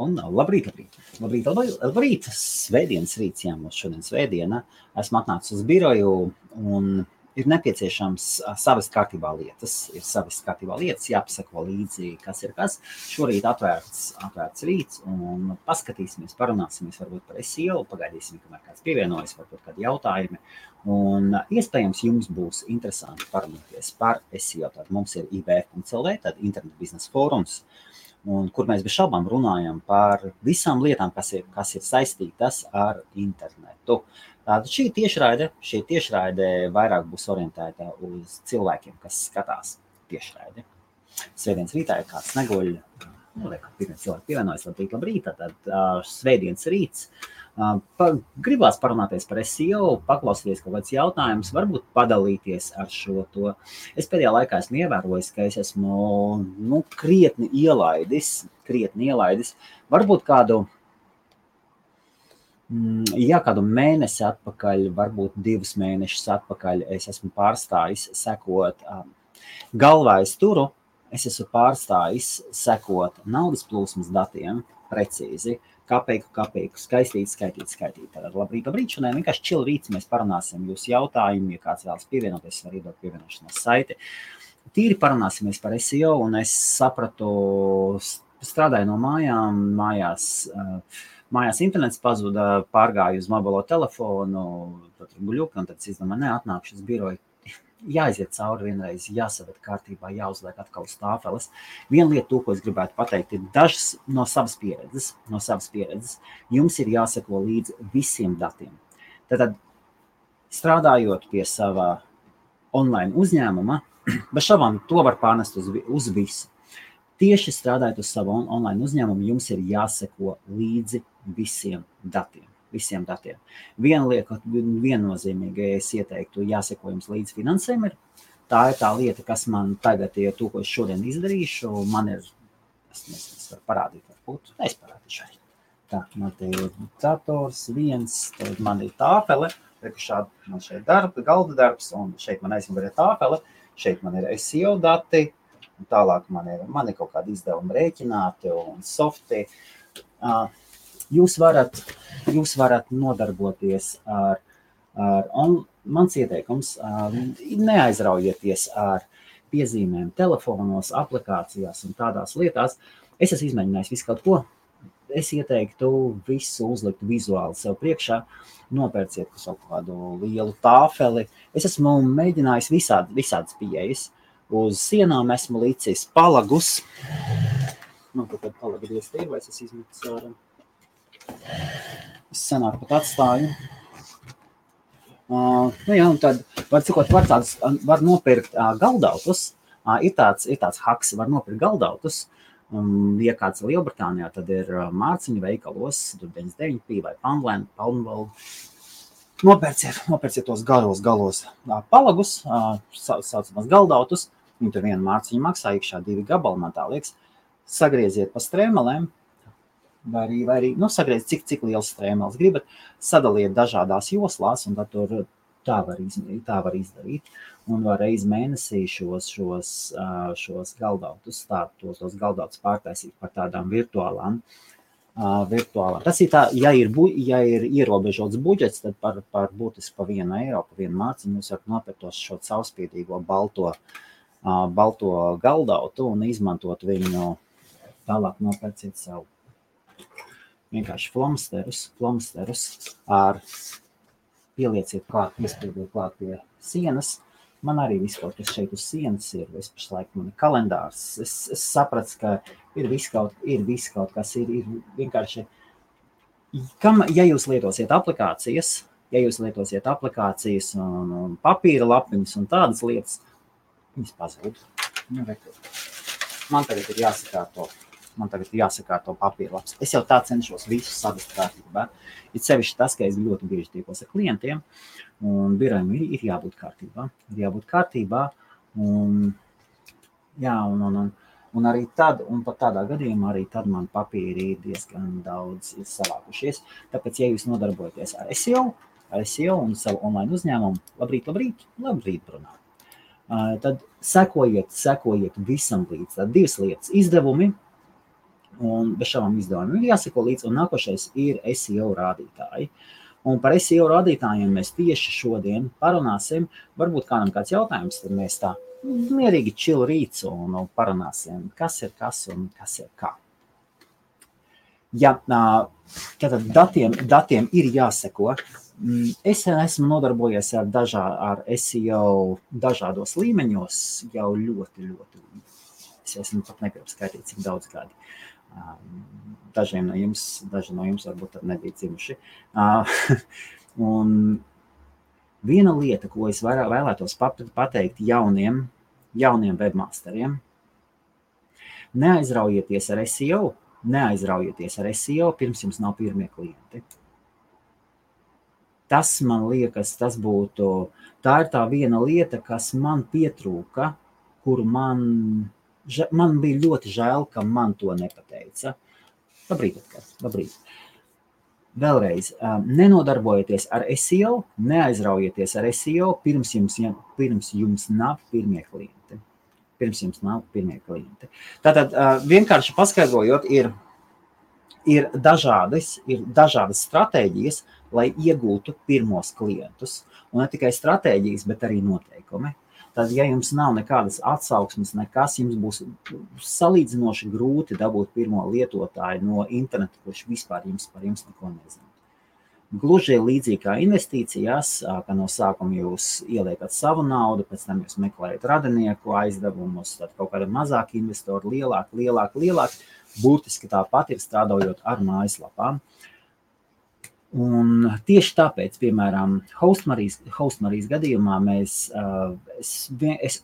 Un labrīt. Svētdienas rīts, jā, mums šodien svētdiena. Esmu atnācis uz biroju un ir nepieciešams savas kārtībā lietas. Jāpasako līdzi, kas ir kas. Šorīt atvērts rīts un paskatīsimies, parunāsimies varbūt par SEO, pagaidīsim, kamēr kāds pievienojas, varbūt kādi jautājumi. Un iespējams jums būs interesanti parunāties par SEO. Tad mums ir IBF.CLV, tad Internet biznesa fórums, un kur mēs bez šaubām runājam par visām lietām, kas ir saistītas ar internetu. Tātad šī tiešraide vairāk būs orientēta uz cilvēkiem, kas skatās tiešraidi. Svētdienas rītā, ja kāds neguļ, pirmie cilvēki pievienojas, labrīt, tad svētdienas rīts. Gribās parunāties par SEO, paklausīties kaut kāds jautājums, varbūt padalīties ar šo to. Es pēdējā laikā esmu ievērojis, ka es esmu krietni ielaidis, varbūt kādu mēnesi atpakaļ, varbūt 2 mēnešus atpakaļ es esmu pārstājis sekot galvā es turu, es esmu pārstājis sekot naudas plūsmas datiem precīzi, kapeiku, skaitīt. Tātad labrīt, šodien vienkārši chill rīts, mēs parunāsim jūsu jautājumu, ja kāds vēlas pievienoties, var iedot pievienošanās saiti. Tīri parunāsimies par SEO, un es sapratu, strādāju no mājās internets pazuda, pārgāju uz mobilo telefonu, tad guļuku, un tad es izdomāju, atnākšu uz biroju. Jāiziet cauri vienreiz, jāsaved kārtībā, jāuzliek atkal uz tāfeles. Viena lieta, ko es gribētu pateikt, ir dažas no savas pieredzes. Jums ir jāseko līdzi visiem datiem. Tātad, strādājot pie sava online uzņēmuma, bez šaubām to var pārnest uz visu. Tieši strādājot uz savu online uzņēmumu, jums ir jāseko līdzi visiem datiem. Viena lieta, viennozīmīgi es ieteiktu, jāseko jums līdz finansēm ir. Tā ir tā lieta, kas man tagad ir to, ko es šodien izdarīšu. Man ir, es varu parādīt, varbūt, es parādīšu arī. Tā, man te ir dators, tad man ir tāfele, man šeit galda darbs, un šeit man aizmugurē tāfele, šeit man ir SEO dati, un tālāk man ir kaut kādi izdevumi rēķināti un softi. Jūs varat nodarboties ar mans ieteikums, neaizraujieties ar piezīmēm telefonos, aplikācijās un tādās lietās. Es esmu izmēģinājis visu kaut ko. Es ieteiktu visu uzlikt vizuāli sev priekšā, nopērciet kaut kādu lielu tāfeli. Es esmu mēģinājis visādas pieejas. Uz sienām esmu licis palagus. Tad palagi dieztīvi, vai es izmetu sārā. Es senāk pat atstāju. Un tad var nopirkt galdautus. Ir tāds haks, var nopirkt galdautus. Ja kāds Lielbritānijā, tad ir mārciņu veikalos, 99p vai Poundland. Nopērciet tos galos palagus, saucamās galdautus. Viņi tur vienu mārciņu maksā, iekšā 2 gabali, man tā liekas. Sagrieziet pa strēmelēm. Vai arī sagrieziet, cik liels strēmeles gribat, sadaliet dažādās joslās, un tad tur tā var izdarīt. Un var reiz mēnesī šos galdautus, tos galdautus pārtaisīt par tādām virtuālām. Tas ir tā, ja ir ierobežots budžets, tad par būtiski pa 1 eiro, pa 1 mārciņu jūs varat nopirkt šo caurspīdīgo balto galdautu un izmantot viņu, tālāk nopērciet savu. Vienkārši flomsterus ar pielieciet klāt, iespēdiet klāt pie sienas. Man arī viss kaut kas šeit uz sienas ir. Es pašlaik man ir kalendārs. Es sapratu, ka ir viss kaut kas, ir vienkārši. Ja jūs lietosiet aplikācijas un papīra lapiņas un tādas lietas, viņas pazūd. Man tagad ir jāsakārto papīrlaps. Es jau tā cenšos visu savest kārtībā. Ir sevišķi tas, ka es ļoti bieži tiekos ar klientiem, un birojam ir jābūt kārtībā. Un arī tad, un pat tādā gadījumā, arī tad man papīri ir diezgan daudz savākušies. Tāpēc, ja jūs nodarbojaties ar SEO un savu online uzņēmumu, labrīt, brunā. Tad sekojiet visam līdz. Tad 2 lietas. un bez šādām izdevumiem ir jāseko līdz, un nākošais ir SEO rādītāji. Un par SEO rādītājiem mēs tieši šodien parunāsim. Varbūt kādam kāds jautājums, tad mēs tā mierīgi chill rīts un parunāsim, kas ir kas un kas ir kā. Ja tātad datiem ir jāseko. Es esmu nodarbojies ar SEO dažādos līmeņos jau ļoti. Es esmu pat nepiepskaitīt, cik daudz gadi. Daži no jums varbūt nebija dzimuši. Un viena lieta, ko es vēlētos pateikt jauniem webmasteriem, neaizraujieties ar SEO, pirms jums nav pirmie klienti. Tas, man liekas, tā ir tā viena lieta, kas man pietrūka, kuru man bija ļoti žēl, ka man to nepateica. Labrīt. Vēlreiz, nenodarbojieties ar SEO, neaizraujieties ar SEO, pirms jums nav pirmie klienti. Tātad, vienkārši paskaidrojot, ir dažādas stratēģijas, lai iegūtu pirmos klientus. Un ne tikai stratēģijas, bet arī noteikumi. Tad, ja jums nav nekādas atsauksmes, nekas, jums būs salīdzinoši grūti dabūt pirmo lietotāju no interneta, kurš vispār par jums neko nezina. Gluži līdzīgi kā investīcijās, ka no sākuma jūs ieliekat savu naudu, pēc tam jūs meklējat radinieku aizdevumus, tad kaut kāda mazāka investora, lielāk. Būtiski tāpat ir strādājot ar mājaslapām. Un tieši tāpēc, piemēram, Hostmarijas gadījumā es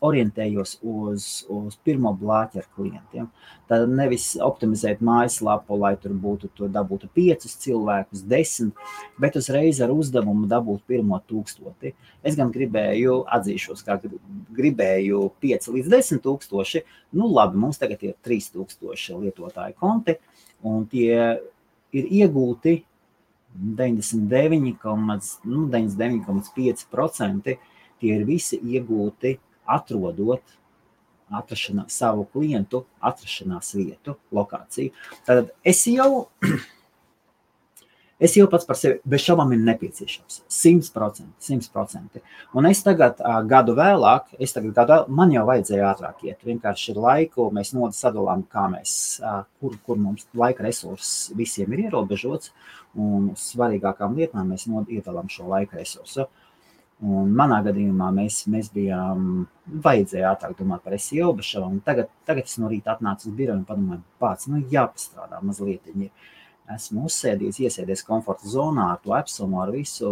orientējos uz pirmo blāķi ar klientiem. Tad nevis optimizēt mājaslapu, lai tur dabūtu 5 cilvēkus, 10, bet uzreiz ar uzdevumu dabūt pirmo 1000. Es gan atzīšos, kā gribēju 5 līdz 10 tūkstoši. Labi, mums tagad ir 3000 lietotāju konti, un tie ir iegūti 99,5%, tie ir visi iegūti atrodot savu klientu atrašanās vietu, lokāciju. Tātad SEO pats par sevi bez šaubām ir nepieciešams. 100%. Un es tagad gadu vēlāk, man jau vajadzēja ātrāk iet. Vienkārši ir laiku, mēs sadalām, kā kur mums laika resurss visiem ir ierobežots, un uz svarīgākām lietām mēs iedalām šo laika resursu. Un manā gadījumā mēs bijām, vajadzēja ātrāk domāt par SEO, bez šaubām. Tagad es no rīta atnācu uz biroju un padomāju, pats, jāpastrādā mazliet. Esmu iesēdies komforta zonā ar to Epsonu, ar visu.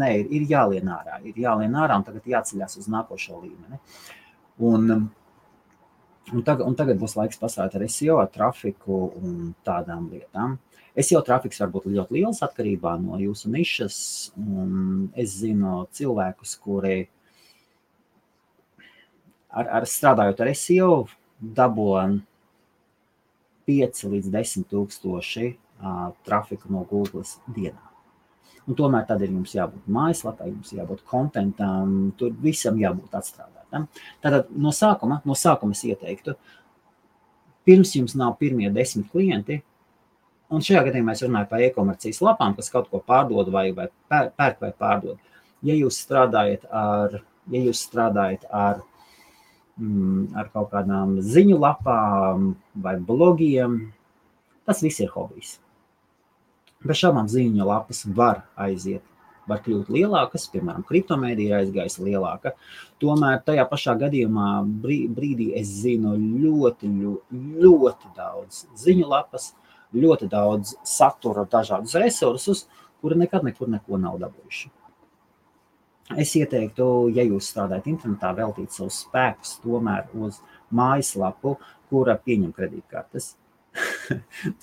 Nē, ir jālien ārā, un tagad jāceļās uz nākošo līmeni. Un tagad būs laiks pastrādāt ar SEO, ar trafiku un tādām lietām. SEO trafiks var būt ļoti liels atkarībā no jūsu nišas, un es zinu cilvēkus, kuri strādājot ar SEO dabūja 5 līdz 10 tūkstoši trafiku no Google dienā. Un tomēr tad ir jums jābūt mājaslapai, jums jābūt kontentam, tur visam jābūt atstrādātam. Tātad no sākuma es ieteiktu, pirms jums nav pirmie 10 klienti, un šajā gadījumā es runāju par e-komercijas lapām, kas kaut ko pārdod vai pērk vai pārdod. Ja jūs strādājat ar kaut kādām ziņu lapām vai blogiem, tas viss ir hobijs. Bez šādām ziņu lapas var kļūt lielākas, piemēram, kriptomēdija aizgājis lielāka. Tomēr tajā pašā gadījumā brīdī es zinu ļoti daudz ziņu lapas, ļoti daudz satura, dažādus resursus, kuri nekad nekur neko nav dabūjuši. Es ieteiktu, ja jūs strādājat internetā, veltīt savus spēkus tomēr uz mājaslapu, kura pieņem kredītkartes.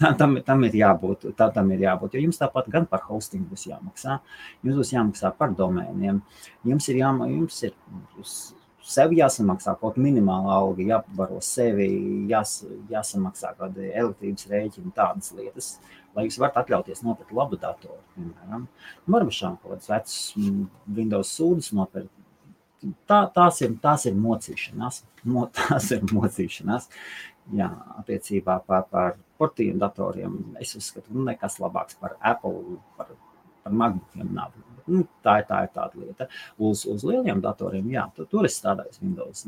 Tam ir jābūt, jo jums tāpat gan par hostingu būs jāmaksā, jums būs jāmaksā par domēniem, jums ir sev jāsamaksā kaut minimāla alga, jāpabaro sevi, jāsamaksā kādi elektrības rēķini, tādas lietas, lai jūs varat atļauties nopirkt labu datoru, piemēram. Varbūt šām kaut kādas vecas Windows sūdas nopirkt. Tās ir mocīšanās. Jā, attiecībā par portīm datoriem es uzskatu, nekas labāks par Apple, par MacBookiem nav. Tā ir tāda lieta. Uz lieliem datoriem, jā, tur es strādāju Windows.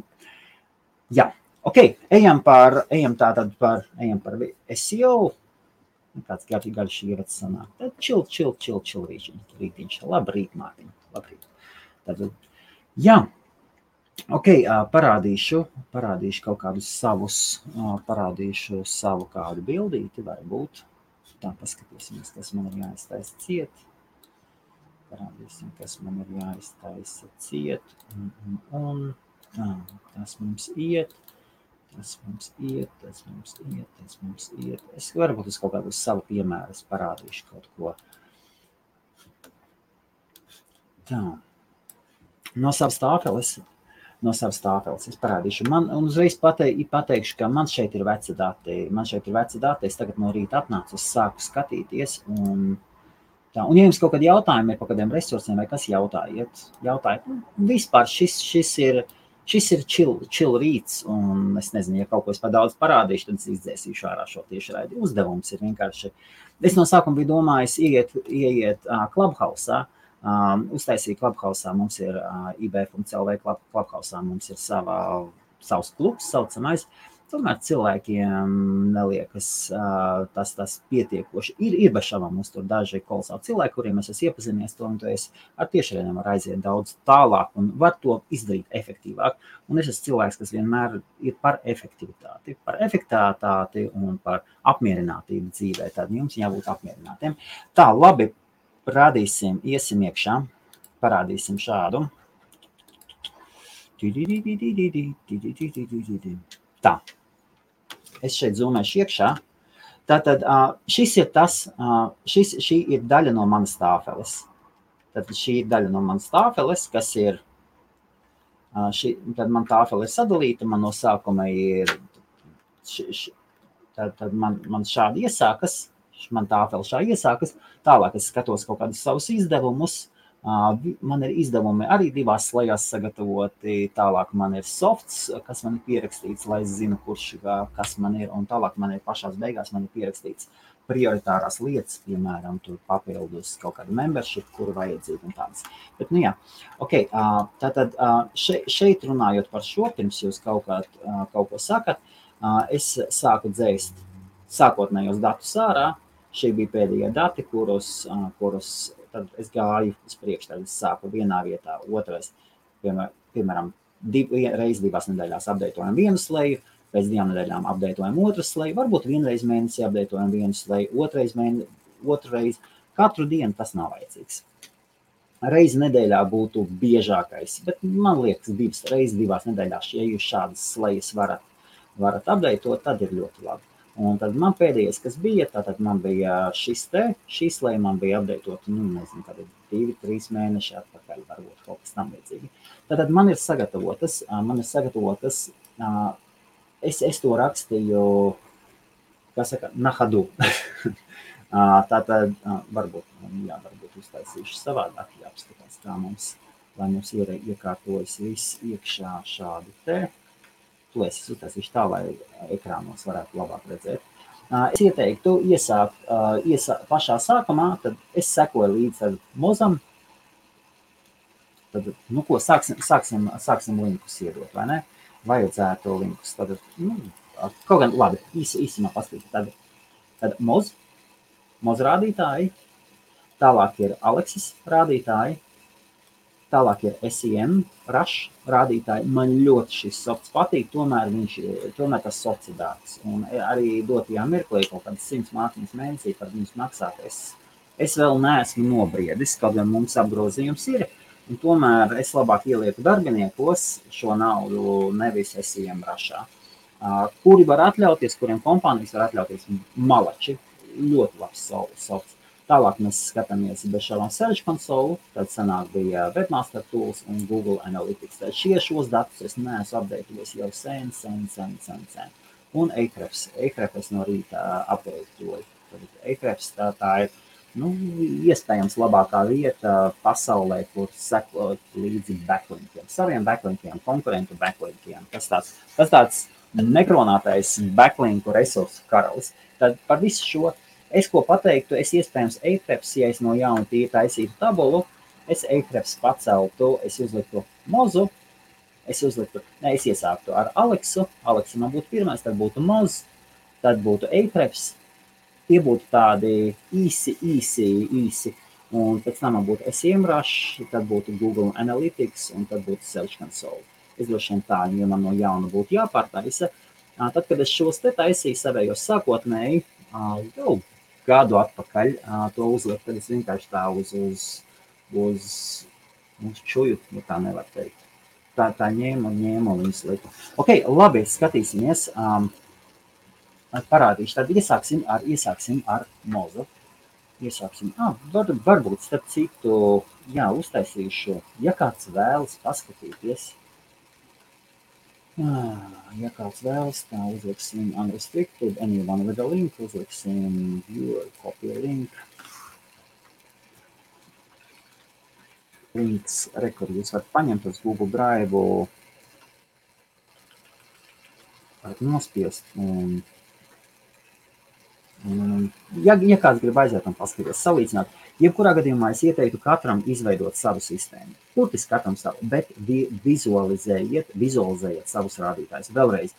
Jā, ok, ejam par SEO. Kāds garš ievads sanāk. Tad chill rītiņš. Labrīt, Mārtiņ. Labrīt. Tad, jā. Ok, parādīšu kaut kādus savus, parādīšu savu kādu bildīti, varbūt. Tā, paskatīsimies, kas man ir jāiztaisa ciet. Parādīsim, kas man ir jāiztaisa ciet. Tas mums iet. Es varbūt uz kaut kādu savu piemēru parādīšu kaut ko. Tā. No savas tāfeles es parādīšu. Man uzreiz pateikšu, ka man šeit ir veci dati. Es tagad no rīta atnācu, sāku skatīties. Un ja jums kaut kādi jautājumi ir par kādiem resursiem vai kas jautājiet. Vispār šis ir chill rīts, un es nezinu, ja kaut ko es par daudz parādīšu, tad es izdzēsīšu ārā šo tiešraidi. Uzdevums ir vienkārši. Es no sākuma biju domājis ieiet Clubhouse-ā, uztaisīt Clubhouse-ā, mums ir IB.CLV Clubhouse-ā, mums ir savs klubs saucamais. Tomēr cilvēkiem neliekas tas pietiekoši. Ir bez šaubām mums tur daži kolosāli cilvēki, kuriem es esmu iepazinies to, un to es ar tiešraidēm var aiziet daudz tālāk un var to izdarīt efektīvāk. Un es esmu cilvēks, kas vienmēr ir par efektivitāti un par apmierinātību dzīvē. Tad jums jābūt apmierinātiem. Tā, labi, iesim iekšā, parādīsim šādu. Tā, es šeit zūmēšu iekšā. Tātad šī ir daļa no manas tāfeles. Tad šī ir daļa no manas tāfeles, kas ir, tad man tāfele ir sadalīta, man no sākuma ir, tad man šādi iesākas, man tāfele šādi iesākas, tālāk es skatos kaut kādus savus izdevumus. Man ir izdevumi arī divās slējās sagatavoti, tālāk man ir softs, kas man ir pierakstīts, lai es zinu, kas man ir, un tālāk man ir pašās beigās man ir pierakstīts prioritārās lietas, piemēram, tur papildus kaut kādu membership, kuru vajadzību un tādas. Bet, nu jā, ok, tātad šeit runājot par šo, pirms jūs kaut ko sakat, es sāku dzēst sākotnējos datus ārā, šie bija pēdējie dati, kurus tad es gāju uz priekšu, tad es sāku vienā vietā, otrais, piemēram, reiz 2 nedēļās apdeitojam vienu sleju, pēc 2 nedēļām apdeitojam otru sleju, varbūt vienreiz mēnesī apdeitojam vienu sleju, otrreiz, katru dienu tas nav vajadzīgs. Reizi nedēļā būtu biežākais, bet man liekas 2 reizes 2 nedēļās, ja jūs šādas slejas varat apdeitot, tad ir ļoti labi. Un tad man pēdējais, kas bija, tātad man bija šī sleja man bija apdeitot, nezinu, tad 2-3 mēneši atpakaļ, varbūt kaut kas tam līdzīgi. Tātad man ir sagatavotas, es to rakstīju, kā saka, nahadu. Tātad varbūt uztaisīšu savādāk, jāapskatās, kā lai mums iekārtojas viss iekšā šādi te. Es uztaisīšu tā, lai ekrānos varētu labāk redzēt. Es ieteiktu iesākt pašā sākumā, tad es sekoju līdz mozam. Tad, sāksim linkus iedot, vai ne? Vajadzētu linkus. Tad, kaut gan, labi, īsumā paskatīt. Tad moz rādītāji, tālāk ir Alexis rādītāji, tālāk ir SEM, Rush rādītāji. Man ļoti šis softs patīk, tomēr tas softs ir dārgs. Un arī dotajā mirklī kaut kādas 100 mārciņas mēnesī par viņus maksāt. Es vēl neesmu nobriedis, kaut gan mums apgrozījums ir. Un tomēr es labāk ielieku darbiniekos šo naudu, nevis SEM Rushā. Kuri var atļauties, kuriem kompānijas var atļauties malači. Ļoti labs softs. Tālāk mēs skatāmies bez šādām Search Console, tad sanāk bija Webmaster Tools un Google Analytics. Tad šos datus es neesmu apdeitojis jau sen. Un Ahrefs es no rīta apdeitoju. Ahrefs tā ir, iespējams labākā vieta pasaulē, kur sekot līdzi backlinkiem. Saviem backlinkiem, konkurentu backlinkiem. Tas tāds nekronātais backlinku resursu karalis. Tad par visu šo es ko pateiktu, es iespējams Ahrefs, ja es no jauna tīri taisītu tabulu, es Ahrefs paceltu, es uzliktu Mozu, es iesāktu ar Aleksu, Aleksa man būtu pirmais, tad būtu Moz, tad būtu Ahrefs, tie būtu tādi īsi, un pēc tam man būtu SEMrush, tad būtu Google Analytics, un tad būtu Search Console. Es droši vien tā, ja man no jauna būtu jāpārtaisa. Tad, kad es šos te taisīju savējos sākotnēji, jau gadu atpakaļ to uzlikt, tad es vienkārši tā uz čuju, ja tā nevar teikt. Tā ņēmu un viņas liku. Ok, labi, skatīsimies. Parādīšu, tad iesāksim ar Mozu. Varbūt starp citu, uztaisīšu, ja kāds vēlas paskatīties. Ja kāds vēlas, tā uzliksim unrestricted, anyone with a link, uzliksim viewer, copy link. Links, kur jūs varat paņemt uz Google Drive, varat nospiest. Ja kāds grib aiziet un paskatīties, salīdzināt, jebkurā gadījumā es ieteiktu katram izveidot savu sistēmu. Burtiski katram savu, bet vizualizējiet savus rādītājus. Vēlreiz,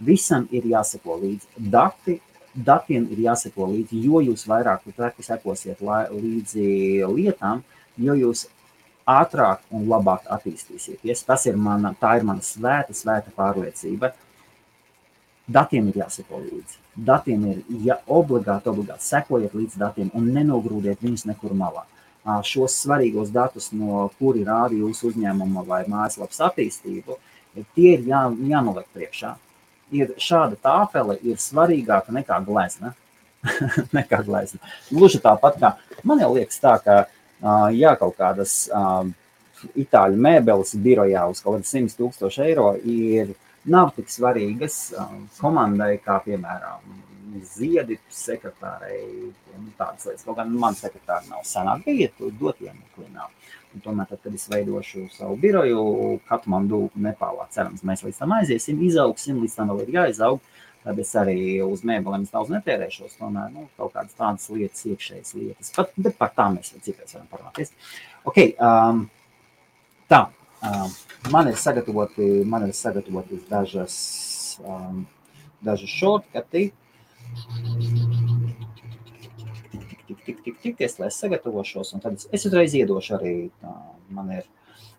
visam ir jāseko līdzi. Datiem ir jāseko līdzi, jo jūs vairāk sekosiet līdzi lietām, jo jūs ātrāk un labāk attīstīsieties. Tā ir mana svēta pārliecība. Datiem ir jāseko līdzi. Datiem ir obligāti sekojiet līdz datiem un nenogrūdiet viņus nekur malā. Šos svarīgos datus, no kuri rāda jūsu uzņēmuma vai mājaslapas attīstību, tie ir jānoliek priekšā. Šāda tāfele ir svarīgāka nekā glezna. Gluži tāpat kā, man jau liekas tā, ka kaut kādas itāļu mēbeles birojā uz kaut kādu 100,000 eiro nav tik svarīgas komandai, kā piemēram ziedi sekretārai, tādas lietas. Kaut gan man sekretāri nav senāk bija, dot iemekli nav. Un tomēr, tad, kad es veidošu savu biroju, Katmandu, Nepālā, cerams, mēs līdz tam aiziesim, izaugsim, līdz tam vēl ir jāizaug, tad es arī uz mēbelēm daudz netērēšos, tomēr, kaut kādas tādas lietas, iekšējas lietas, bet par tām mēs vēl citreiz varam parunāties. Ok, tā. Man ir sagatavoti dažas shortcuti. Lai es sagatavošos, un tad es uzreiz iedošu arī,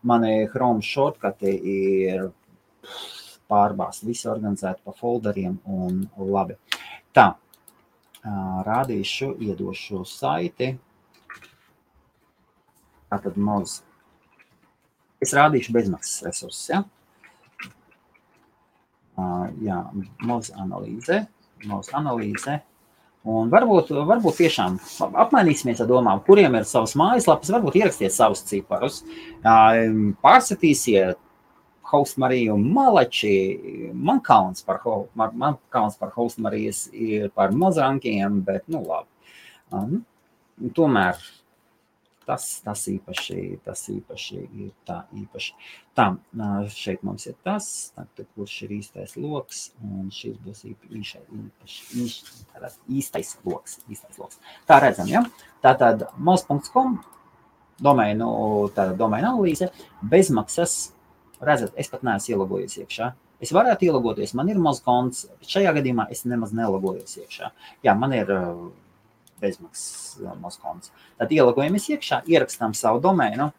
mani Chrome shortcuti ir pārbāsti, visi organizēti pa folderiem un labi. Tā, rādīšu, iedošu saiti. Tātad Moz. Es rādīšu bezmaksas resursus, ja? Moz analīze. Un varbūt tiešām apmainīsimies ar domām, kuriem ir savas mājaslapas, varbūt ierakstiet savus ciparus, pārsatīsiet Hostmariju Malači, man kauns par Hostmarijas ir par Mozrankiem, bet, labi. Tomēr tas īpaši ir tā īpaši. Tā, šeit mums ir tas, kurš ir īstais loks, un šis būs īstais loks. Tā redzam, ja? Tātad moz.com, domēnu analīze, bezmaksas, redzat, es pat neesmu ielogojies iekšā. Es varētu ielogoties, man ir moz.konts, šajā gadījumā es nemaz nelogojos iekšā. Jā, man ir bezmaksas moz.konts. Tad ielogojamies iekšā, ierakstām savu domēnu,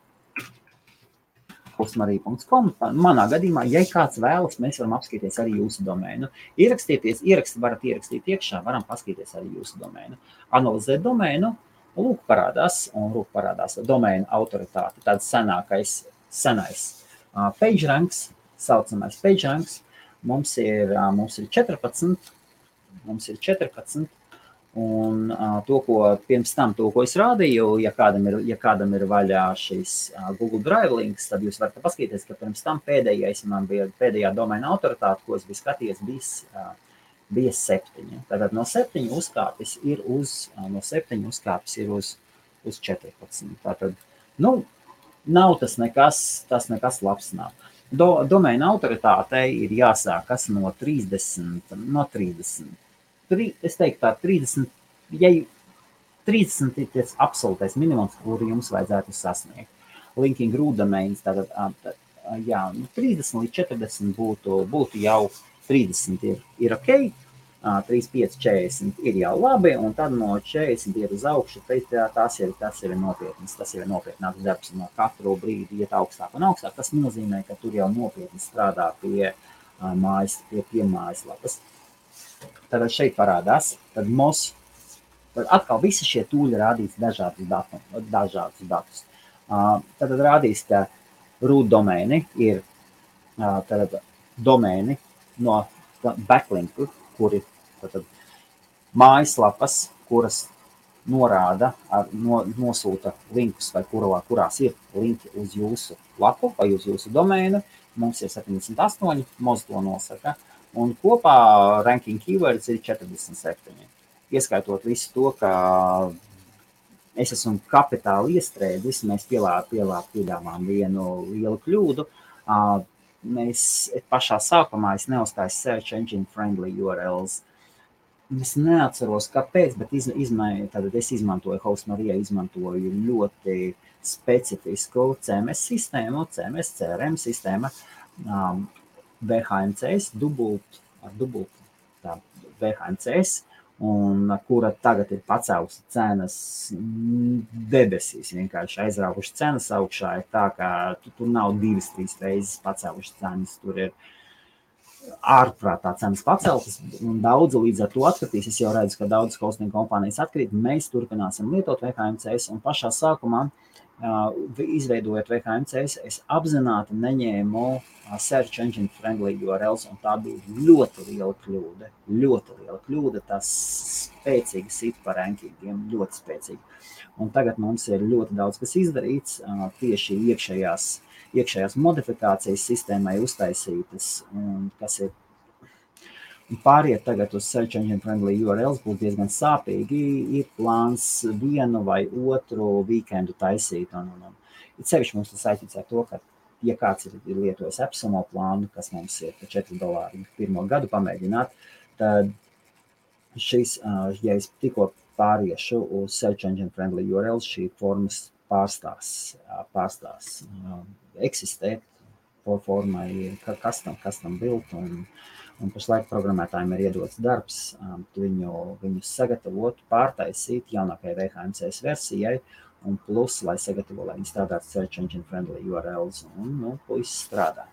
hostmarija.com. Manā gadījumā, ja kāds vēlas, mēs varam apskatīties arī jūsu domēnu. Varat ierakstīt iekšā, varam paskatīties arī jūsu domēnu. Analizēt domēnu, lūk parādās domēnu autoritāte, tāds senais PageRanks, saucamais PageRanks. Mums ir 14, un pirms tam, ko es rādīju, ja kādam ir vaļā šis Google Drive links, tad jūs varat paskatīties, ka pirms tam pēdējā domēna autoritāte, ko es biju skatījies, bija 7. Tātad no 7 uzkāpis ir uz 14. Tātad, nav tas nekas labs nav. Domēna autoritātei ir jāsākas no 30. es teiktu tā 30, ja 30 ir tas absolūtais minimums, kuru jums vajadzētu sasniegt. Linking root domains, tātad, jā, 30 līdz 40 būtu jau 30 ir ok, 35, 40 ir jau labi, un tad no 40 iet uz augšu, tas ir nopietnas, tas ir nopietnāks darbs, no katru brīdi iet augstāk un augstāk. Tas nozīmē, ka tur jau nopietni strādā pie mājaslapas. Tad šeit parādās, tad atkal visi šie tūļi rādīs dažādus datus. Tad rādīs, ka root domēni ir domēni no backlinku, kuri mājaslapas, kuras norāda, nosūta linkus, vai kurās ir linki uz jūsu lapu vai uz jūsu domēnu. Mums ir 78, Moz to nosaka, un kopā ranking keywords ir 47. Ieskaitot visu to, ka es esmu kapitāli iestrēdzis, mēs piedāvām vienu lielu kļūdu. Mēs pašā sākumā neuzstāju search engine friendly URLs. Es neatceros, kāpēc, bet es izmantoju, Hostmarija izmantoju ļoti specifisku CMS sistēmu, CMS CRM sistēma, VHMCS, VHMCS, un kura tagad ir pacēlusi cenas debesīs, vienkārši aizrauguši cenas augšā, ir tā, ka tur nav 2-3 reizes pacēluši cenas, tur ir ārprātā cenas paceltas, un daudzi līdz ar to atkritīs. Es jau redzu, ka daudzas hosting kompānijas atkrīt. Mēs turpināsim lietot VHMCS, un pašā sākumā, izveidojot VHMCS, es apzināti neņēmu search engine friendly URLs, un tā bija ļoti liela kļūda. Tas spēcīgi sit par rankingiem, ļoti spēcīgi. Un tagad mums ir ļoti daudz kas izdarīts, tieši iekšējās modifikācijas sistēmai uztaisītas, un kas ir pāriet tagad uz search engine friendly URLs būs diezgan sāpīgi. Ir plāns vienu vai otru weekendu taisīt, un it sevišķi mums tas saistīts ar to, ka, ja kāds ir lietojis AppSumo plānu, kas mums ir $4 pirmo gadu pamēģināt, tad šis, ja es tikko pāriešu uz search engine friendly URLs, šī formas pārstās eksistēt, formai ir custom build, un pašlaik programmētājiem ir iedots darbs viņu sagatavot, pārtaisīt jaunākajai VHMCS versijai, un plus, lai sagatavo, lai viņi strādātu search engine friendly URLs, un puisis strādā.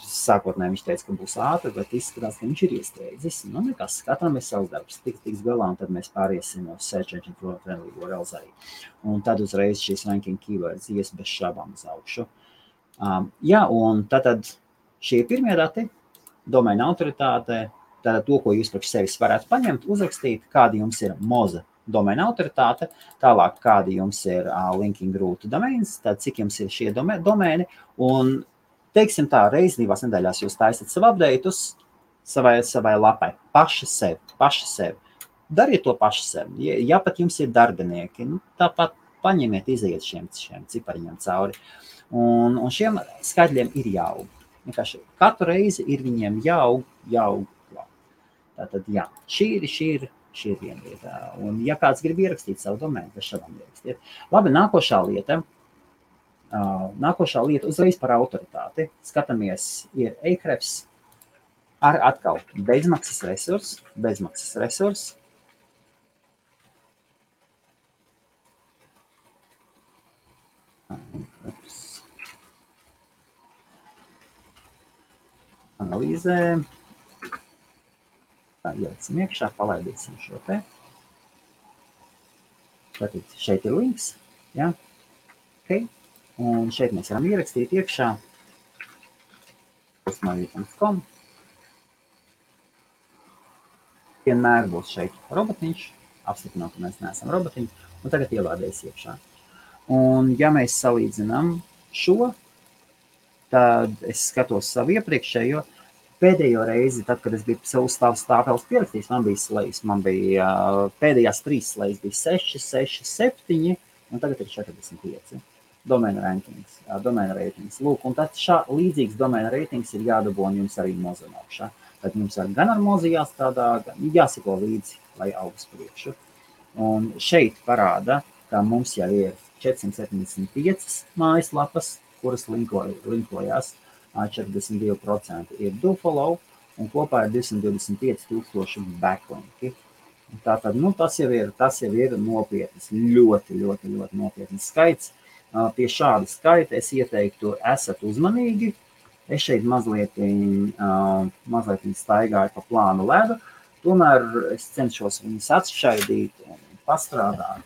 Sākotnēji viņš teica, ka būs ātri, bet izskatās, ka viņš ir iestrēdzis. Nekas, katram ir savs darbs, tiks galā, un tad mēs pāriesim uz search engine friendly URLs arī. Un tad uzreiz šīs ranking keywords ies bez šābām uz augšu. Jā, un tad šie pirmie dati, domēna autoritāte, tātad to, ko jūs priekš sevis varētu paņemt, uzrakstīt, kādi jums ir Moza domēna autoritāte, tālāk kādi jums ir linking root domains, tad cik jums ir šie domēni, un teiksim tā, reizi 2 nedēļās jūs taisat savu update'us savai lapai, paši sev. Dariet to paši sev. Ja pat jums ir darbinieki, tāpat paņemiet, iziet šiem cipariņiem cauri. Un šiem skaitļiem ir jāaug. Vienkārši katru reizi ir viņiem jāaug. Tātad, jā, šī ir viena lieta. Un ja kāds grib ierakstīt savu domēnu, tad šādām ierakstiet. Labi, nākošā lieta uzreiz par autoritāti. Skatāmies, ir Ahrefs ar atkal bezmaksas resurs. Analīzē. Tā, ieliksim iekšā, palaidīsim šo te. Tātad šeit ir links, ja? Okay. Un šeit mēs varam ierakstīt iekšā hostmarija.com. Vienmēr būs šeit robotiņš, apstiprināt, ka mēs neesam robotiņi, un tagad ielādēs iekšā. Un ja mēs salīdzinām šo, tad es skatos savu iepriekšējo. Pēdējo reizi, tad, kad es biju savu stāvēles pierakstījis, man bija slējas. Man bija pēdējās 3 slējas bija 6, 7, un tagad ir 45. Domēna ratings. Lūk, un tad līdzīgs domēna ratings ir jādabū un jums arī Moza augšā. Tad jums gan ar mozu jāstrādā, gan jāsako līdzi, lai aug uz priekšu. Un šeit parāda, ka mums jau ir 475 mājaslapas, kuras linkojās, 42% ir dofollow, un kopā ir 225,000 backlinki. Tātad, tas jau ir nopietns, ļoti nopietns skaits. Pie šāda skaita es ieteiktu, esat uzmanīgi. Es šeit mazliet staigāju pa plānu ledu, tomēr es cenšos viņus atšķaidīt un pastrādāt.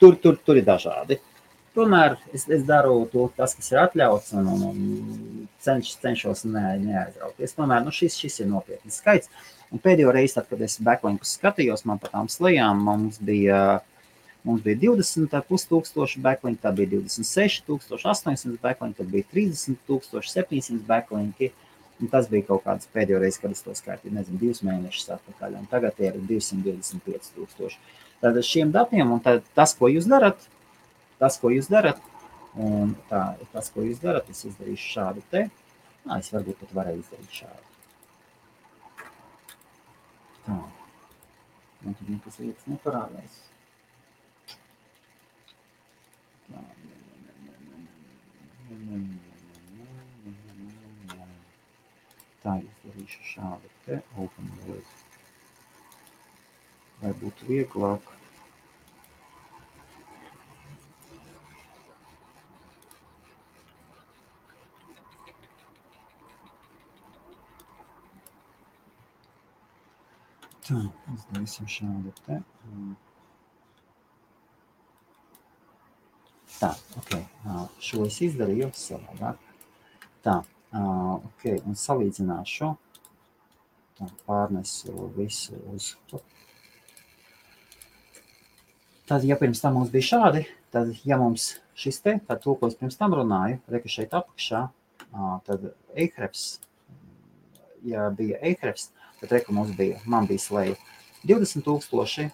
Tur ir dažādi. Tomēr es daru tas, kas ir atļauts, un cenšos neaizrauties. Tomēr šis ir nopietns skaits. Un pēdējo reizi, tad, kad es backlinkus skatījos, man pa tām slejām, mums bija 20,500 backlinki, tad bija 26,800 backlinki, tad bija 30,700 backlinki. Un tas bija kaut kāds pēdējo reizi, kad es to skaitīju, 2 mēnešus atpakaļ, un tagad ir 225,000. Tad šiem datiem, un tas, ko jūs darat, un tas, ko jūs darat, es izdarīšu šādu te. Es varbūt pat varēju izdarīt šādu. Tā. Man tur nekas lietas neparādās. Tā, izdarīšu šādu te open world. Lai būtu vieglāk. Tā, izdarīsim šādu te. Tā, ok, šo es izdarīju savādāk. Tā, ok, un salīdzināšu. Tā, pārnesu visu uz. Tad, ja pirms tam mums bija šādi, tad, ja mums šis te, tad to, ko es pirms tam runāju, reka šeit apakšā, tad Ahrefs, ja bija Ahrefs, tad reka man bija sleja 20,000,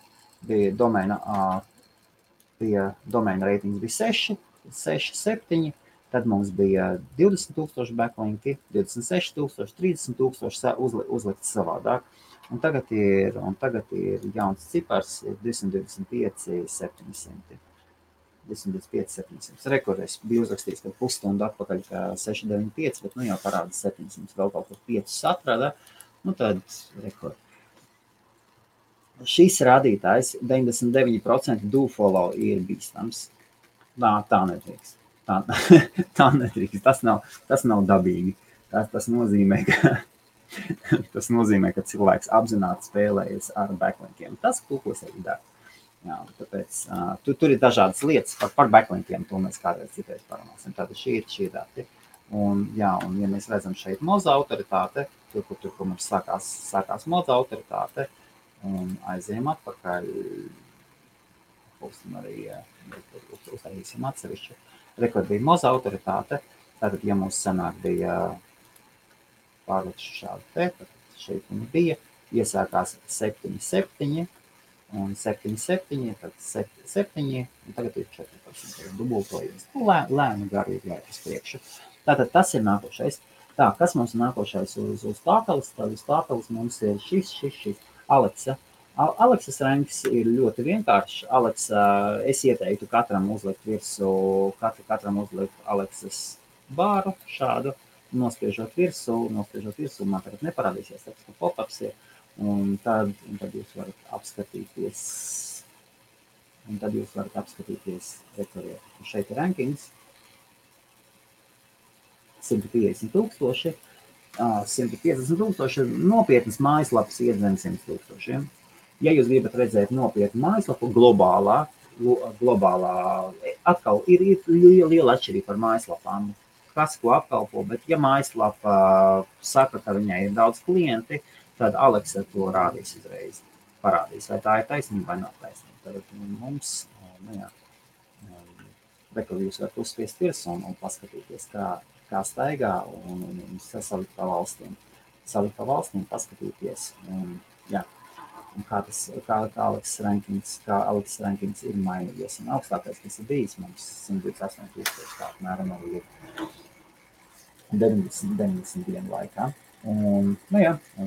bija domēna reitings bija 6, 7, tad mums bija 20,000 backlinki, 26,000, 30,000 uzlikts savādāk. Un tagad ir jauns cipars, 225,700. 225,700. Rekordēs bija uzrakstīts, ka pusstundu atpakaļ, ka 695, bet jau parāda 700, vēl kaut kur 5 atrada. Tad rekord. Šis rādītājs 99% dofollow ir bīstams. Tā nedrīkst. Tā nedrīkst. Tas nav dabīgi. Tas nozīmē, ka cilvēks apzināti spēlējas ar backlinkiem. Tas, ko es arī daru. Tāpēc tur ir dažādas lietas par backlinkiem, to mēs kādreiz citreiz parunāsim. Tātad šī ir dati. Un ja mēs redzam šeit moza autoritāte, tur, kur mums sākās moza autoritāte, un aizējam atpakaļ, arī uztaisīsim atsevišķu. Rekord bija moza autoritāte, tātad, ja mums senāk bija pārlikšu šādu te, tad šeit viņi bija, iesākās 7,7, un 7,7, tad 7, un tagad ir 14, dubultojies. Lēni gari ir jāiet uz priekšu. Tātad tas ir nākošais. Tā, kas mums ir nākošais uz tāpeles? Tad uz tāpeles mums ir šis. Alexa. Alexas ranks ir ļoti vienkāršs. Alexa, es ieteiktu katram uzlikt virsū Alexas bāru šādu, nospiežot virsū, man tagad neparādīsies, tāpēc, ka pop-ups ir, un tad jūs varat apskatīties, šeit ir rankings, 150,000, 150,000, nopietnas mājaslapas iet zem 100,000. Ja jūs gribat redzēt nopietnu mājaslapu globālā, atkal ir liela atšķirība par mājaslapām, kas ko apkalpo, bet ja mājaslapa saka, ka viņai ir daudz klienti, tad Alexa to rādīs uzreiz. Parādīs, vai tā ir taisnība vai nav taisnība. Tad mums, rekord jūs varat uzspiest virsū un paskatīties, kā staigā un salikt pa valstīm, paskatīties. Un kā Alexa rankings ir mainījies. Un augstākais, kas ir bijis, mums 128,000, tā apmēram arī ir 90 dienu laikā. Un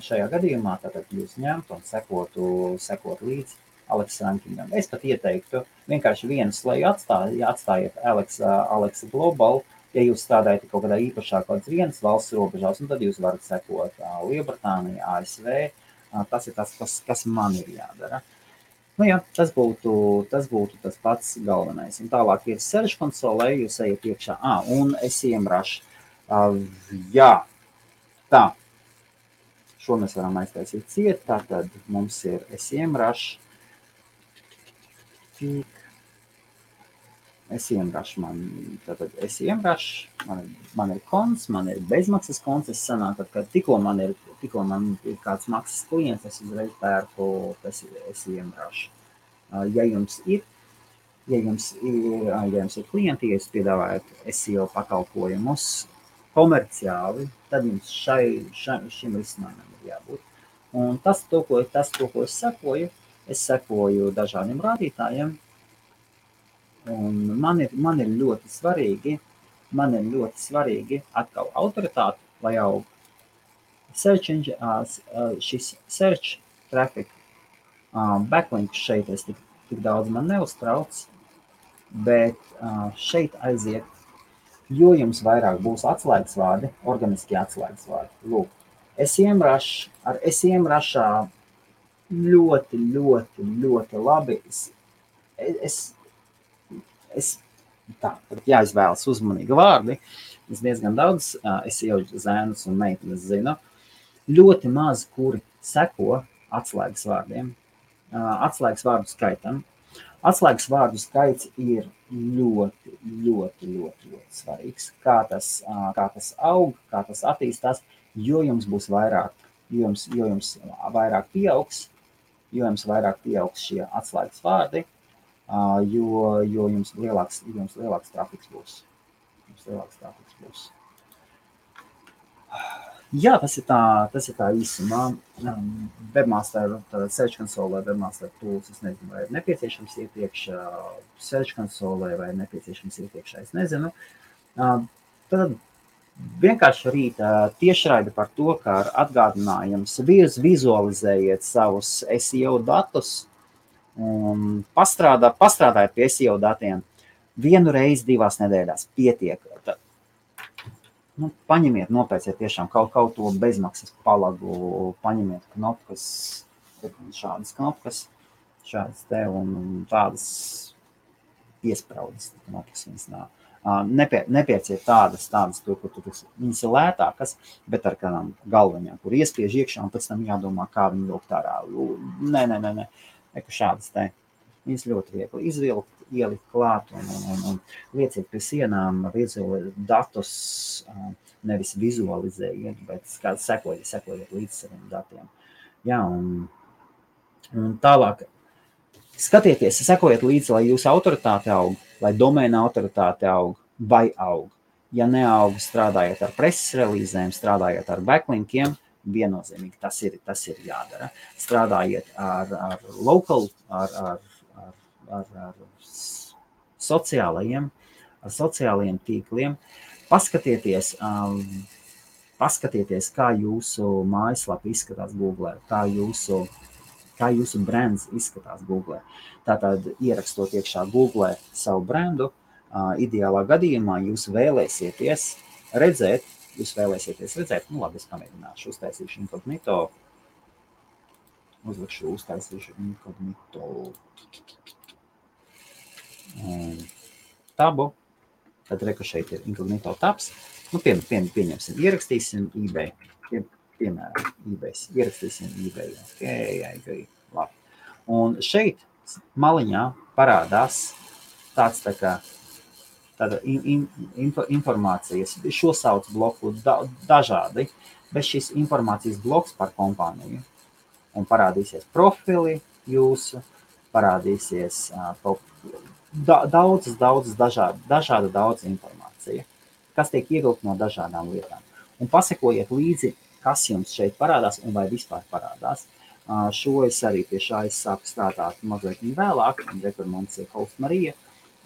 šajā gadījumā tātad jūs ņemtu un sekotu līdzi Alex rankingam. Es pat ieteiktu vienkārši vienu sleju atstājiet Alex Global, ja jūs strādājat kaut kādā īpašā kaut kādas vienas valsts robežās, un tad jūs varat sekot Lielbritānija, ASV. Tas ir tas, kas man ir jādara. Tas būtu tas pats galvenais. Un tālāk ir Search konsolē, jūs ejat iekšā. Un SEMrush. Jā, tā. Šo mēs varam aiztaisīt ciet. Tātad mums ir SEMrush. SEMrush man ir konts, man ir bezmaksas konts. Es sanāk, ka tikko man ir kāds maksas klients, es uzreiz pērku SEMrush. Ja jums ir klienti, ja jūs piedāvājat SEO pakalpojumus komerciāli, tad jums šim risinājumam ir jābūt. Un tas, ko es sekoju dažādiem rādītājiem, un man ir ļoti svarīgi atkal autoritāte, lai aug šis search traffic, backlinks šeit es tik daudz man neuztrauc, bet šeit aiziet, jo jums vairāk būs atslēgas vārdi, organiski atslēgas vārdi. Lūk, SEMrush, ar SEMrushā ļoti labi. Tā, jāizvēlas uzmanīgi vārdi. Es diezgan daudz SEO zēnus un meitenes zinu. Ļoti maz, kuri seko atslēgas vārdiem, atslēgas vārdu skaitam. Atslēgas vārdu skaits ir ļoti svarīgs. Kā tas aug, kā tas attīstās, jo jums būs vairāk, jo jums vairāk pieaugs šie atslēgas vārdi, jo jums lielāks trafiks būs. Jā, tas ir tā īsumā. Webmaster Search konsolē, Webmaster tools, es nezinu, vai ir nepieciešams iepriekš Search konsolē, vai ir nepieciešams iepriekš, es nezinu. Tad vienkārši rīt tiešraidi par to, ka ar atgādinājums vizualizējiet savus SEO datus un pastrādājiet pie SEO datiem 1 reizi 2 nedēļās pietiek. Paņemiet, nopērciet tiešām kaut to bezmaksas palagu, paņemiet knopkas, šādas knopkas, šādas te un tādas piespraudas knopkas viņas nav. Nepērciet tādas, tur, kur viņas ir lētākas, bet ar kādām galvaņām, kur iespiež iekšā un pēc tam jādomā, kā viņu vilkt ārā. Nē, šādas te. Viņas ļoti viegli izvilkt, ielikt klāt un lieciet pie sienām datus, nevis vizualizējiet, bet sekojiet līdz saviem datiem. Jā, un tālāk skatieties, sekojiet līdzi, lai jūsu autoritāte aug, lai domēna autoritāte aug vai aug. Ja neaug, strādājiet ar preses relīzēm, strādājiet ar backlinkiem, viennozīmīgi tas ir jādara. Strādājiet ar local, ar sociālajiem tīkliem. Paskatieties, kā jūsu mājaslapa izskatās Google, kā jūsu brands izskatās Google. Tātad ierakstot iekšā Google savu brandu, ideālā gadījumā jūs vēlēsieties redzēt, labi, es pamēģināšu, uztaisīšu inkognito, tabu, tad reku šeit ir inkognito tabs, pieņemsim, ierakstīsim eBay, piemēram, ierakstīsim eBay, okay, labi. Un šeit maliņā parādās tāda informācijas, šo sauc bloku dažādi, bet šis informācijas bloks par kompāniju. Un parādīsies profili jūsu, parādīsies daudz informācija, kas tiek ievilkt no dažādām lietām. Un pasekojiet līdzi, kas jums šeit parādās un vai vispār parādās. Šo es arī pie šā es sāku strādāt mazliet vēlāk, un rekur mums ir Host Marija,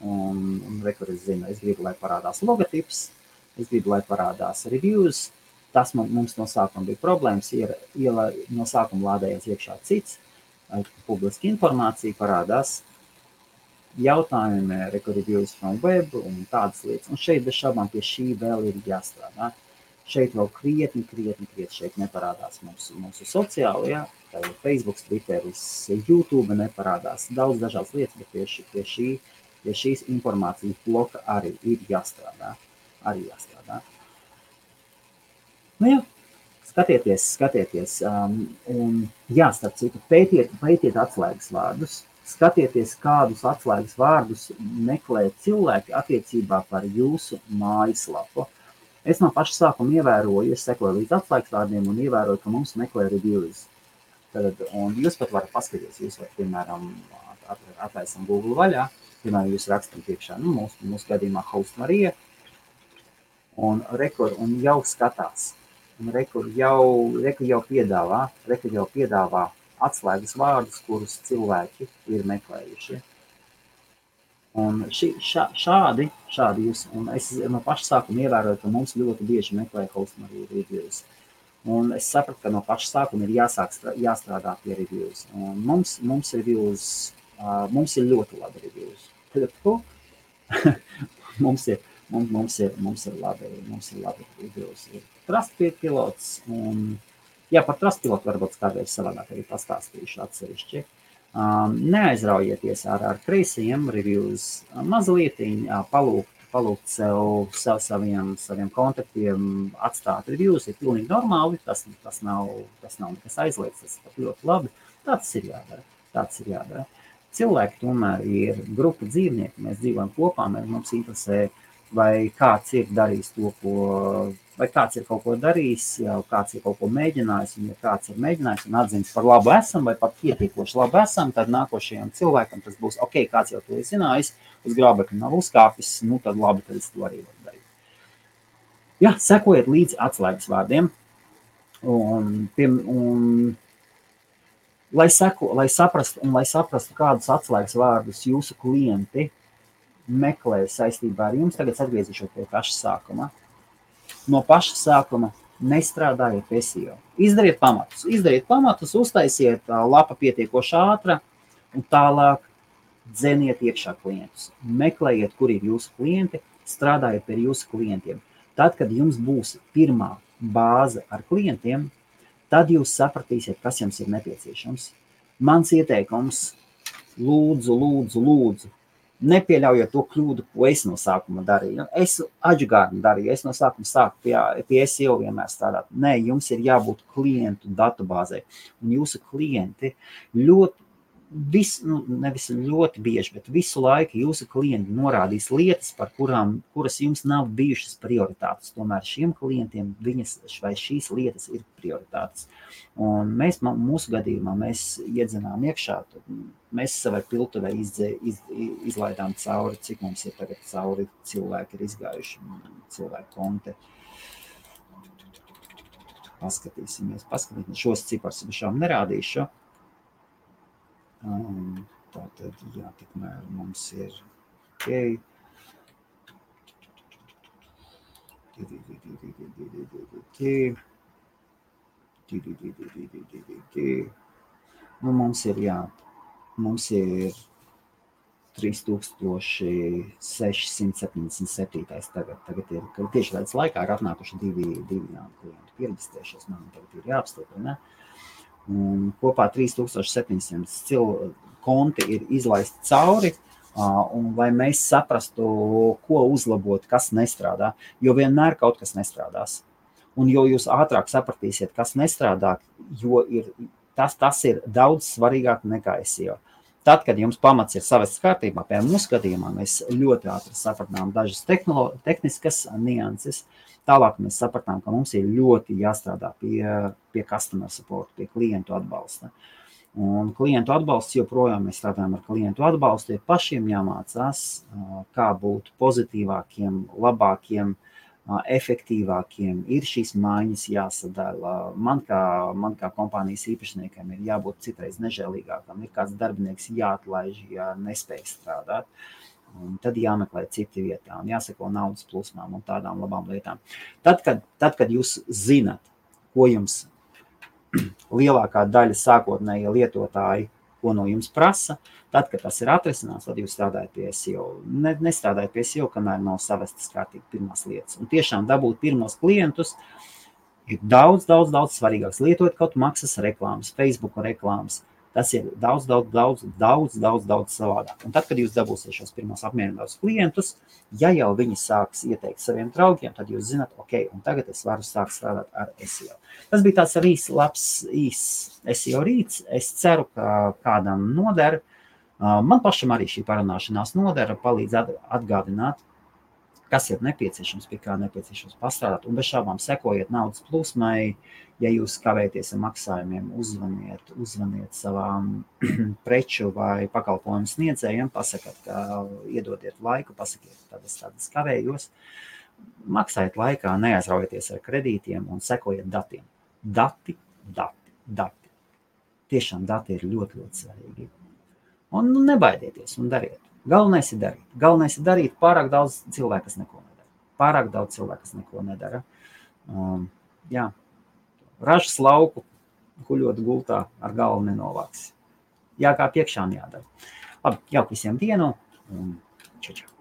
un rekur es zinu, es gribu, lai parādās logotips, es gribu, lai parādās reviews, Tas mums no sākuma bija problēmas, no sākuma lādējās iekšā cits, publiska informācija parādās, jautājumi, reviews from web un tādas lietas. Un šeit bez šaubām pie šī vēl ir jāstrādā. Šeit vēl krietni šeit neparādās mūsu sociāli, ja? Tā ir Facebook, Twitteris, YouTube neparādās, daudz dažādas lietas, bet pie šīs informācijas bloka arī ir jāstrādā. Nu jā, skatieties, un jā, starp citu, pētiet atslēgas vārdus, skatieties, kādus atslēgas vārdus meklē cilvēki attiecībā par jūsu mājaslapu. Es no paša sākuma ievēroju, es sekoju līdz atslēgas vārdiem un ievēroju, ka mums meklē reviews. Un jūs pat varat paskatīties, jūs varat, piemēram, atlaisam Google vaļā, piemēram, jūs rakstam priekšā, mūsu gadījumā Host Marija, un jau skatās. Un rekur jau piedāvā atslēgas vārdus, kurus cilvēki ir meklējuši. Un šādi jūs, un es no paša sākuma ievēroju, ka mums ļoti bieži meklē Host Marija reviews. Un es sapratu, ka no paša sākuma ir jāstrādā pie reviews. Un mums reviews, mums ir ļoti labi reviews. Mums ir labi reviews. Trustpilot pilots, un par Trustpilot varbūt kādreiz savādāk arī pastāstīšu atsevišķi. Neaizraujieties ar kreisajiem reviews, mazlietiņ palūgt saviem kontaktiem atstāt reviews, ir pilnīgi normāli, tas nav nekas aizliegts, tas ir ļoti labi, tāds ir jādara. Cilvēki tomēr ir grupa dzīvnieki, mēs dzīvojam kopā, mums interesē, vai kāds ir darījis to, vai kāds ir kaut ko darījis, jau kāds ir kaut ko mēģinājis, un ja kāds ir mēģinājis un atzins par labu esam, vai pat pietiekoši labu esam, tad nākošajam cilvēkam tas būs, ok, kāds jau to ir zinājis, uz grābekļa nav uzkāpis, tad labi, tad es to arī varu darīt. Jā, sekojiet līdz atslēgas vārdiem, un lai saprastu, kādus atslēgas vārdus jūsu klienti meklē saistībā ar jums, tagad atgriezīšos pie paša sākuma. No paša sākuma nestrādājiet pie SEO. Izdariet pamatus, uztaisiet lapa pietiekoši ātra un tālāk dzeniet iekšā klientus. Meklējiet, kur ir jūsu klienti, strādājiet pie jūsu klientiem. Tad, kad jums būs pirmā bāze ar klientiem, tad jūs sapratīsiet, kas jums ir nepieciešams. Mans ieteikums, lūdzu, nepieļaujiet to kļūdu, ko es no sākuma darīju. Es adžugārni darīju, es no sākuma sāku pie SEO vienmēr strādāt. Nē, jums ir jābūt klientu datubāzē. Un jūsu klienti nevis ļoti bieži, bet visu laiku jūsu klienti norādīs lietas, kuras jums nav bijušas prioritātes. Tomēr šiem klientiem šīs lietas ir prioritātes. Un mūsu gadījumā mēs iedzenām iekšā, mēs savai piltuvē izlaidām cauri, cik mums ir tagad cauri cilvēki ir izgājuši, cilvēku konti. Paskatīsimies. Šos cipars šām nerādīšu. Tātad, jā, tikmēr mums ir ok. Mums ir 3677 tagad ir, tieši tāds laikā ir atnākuši divi klienti pierģistrējušies, man tagad ir jāapstiprina. Un kopā 3700 konti ir izlaisti cauri, un lai mēs saprastu, ko uzlabot, kas nestrādā, jo vienmēr kaut kas nestrādās. Un jo jūs ātrāk sapratīsiet, kas nestrādā, jo tas ir daudz svarīgāk nekā SEO. Tad, kad jums pamats ir savests kārtībā, piemēram, mūsu gadījumā mēs ļoti ātri sapratām dažas tehniskas nianses. Tālāk mēs sapratām, ka mums ir ļoti jāstrādā pie customer support, pie klientu atbalsta. Un klientu atbalsts joprojām mēs strādājam ar klientu atbalstu, ir pašiem jāmācās, kā būt pozitīvākiem, labākiem, efektīvākiem, ir šīs maiņas jāsadala. Man kā kompānijas īpašniekam ir jābūt citreiz nežēlīgākam, ir kāds darbinieks jāatlaiž, ja nespēj strādāt. Un tad jāmeklē citi vietā un jāseko naudas plūsmām un tādām labām lietām. Tad, kad jūs zinat, ko jums lielākā daļa sākotnēji lietotāji, ko no jums prasa, tad, kad tas ir atrisināts, tad jūs strādājat pie SEO. Nestrādājat pie SEO, kamēr nav savestas kārtīgi pirmās lietas. Un tiešām dabūt pirmos klientus ir daudz svarīgāks. Lietot kaut maksas reklāmas, Facebook reklāmas. Tas ir daudz savādāk. Un tad, kad jūs dabūsiet šos pirmos apmierinātos klientus, ja jau viņi sāks ieteikt saviem draugiem, tad jūs zināt, ok, un tagad es varu sākt strādāt ar SEO. Tas bija tāds arī labs SEO rīts. Es ceru, ka kādam noder. Man pašam arī šī parunāšanās nodara, palīdz atgādināt, kas ir nepieciešams, pie kā nepieciešams pastrādāt. Un bez šābām sekojiet naudas plūsmai. Ja jūs kavēties ar maksājumiem, uzvaniet savām preču vai pakalpojumu sniedzējiem, pasakiet, ka iedodiet laiku, pasakiet, tad es kavējos. Maksājiet laikā, neaizraujieties ar kredītiem un sekojiet datiem. Dati. Tiešām dati ir ļoti svarīgi. Un nebaidieties un dariet. Galvenais ir darīt. Galvenais ir darīt. Pārāk daudz cilvēku, kas neko nedara. Jā. Ražas lauku, guļot gultā, ar galvu nenovāks. Jā, kā piekšā jādara. Labi, jauku visiem dienu un čau.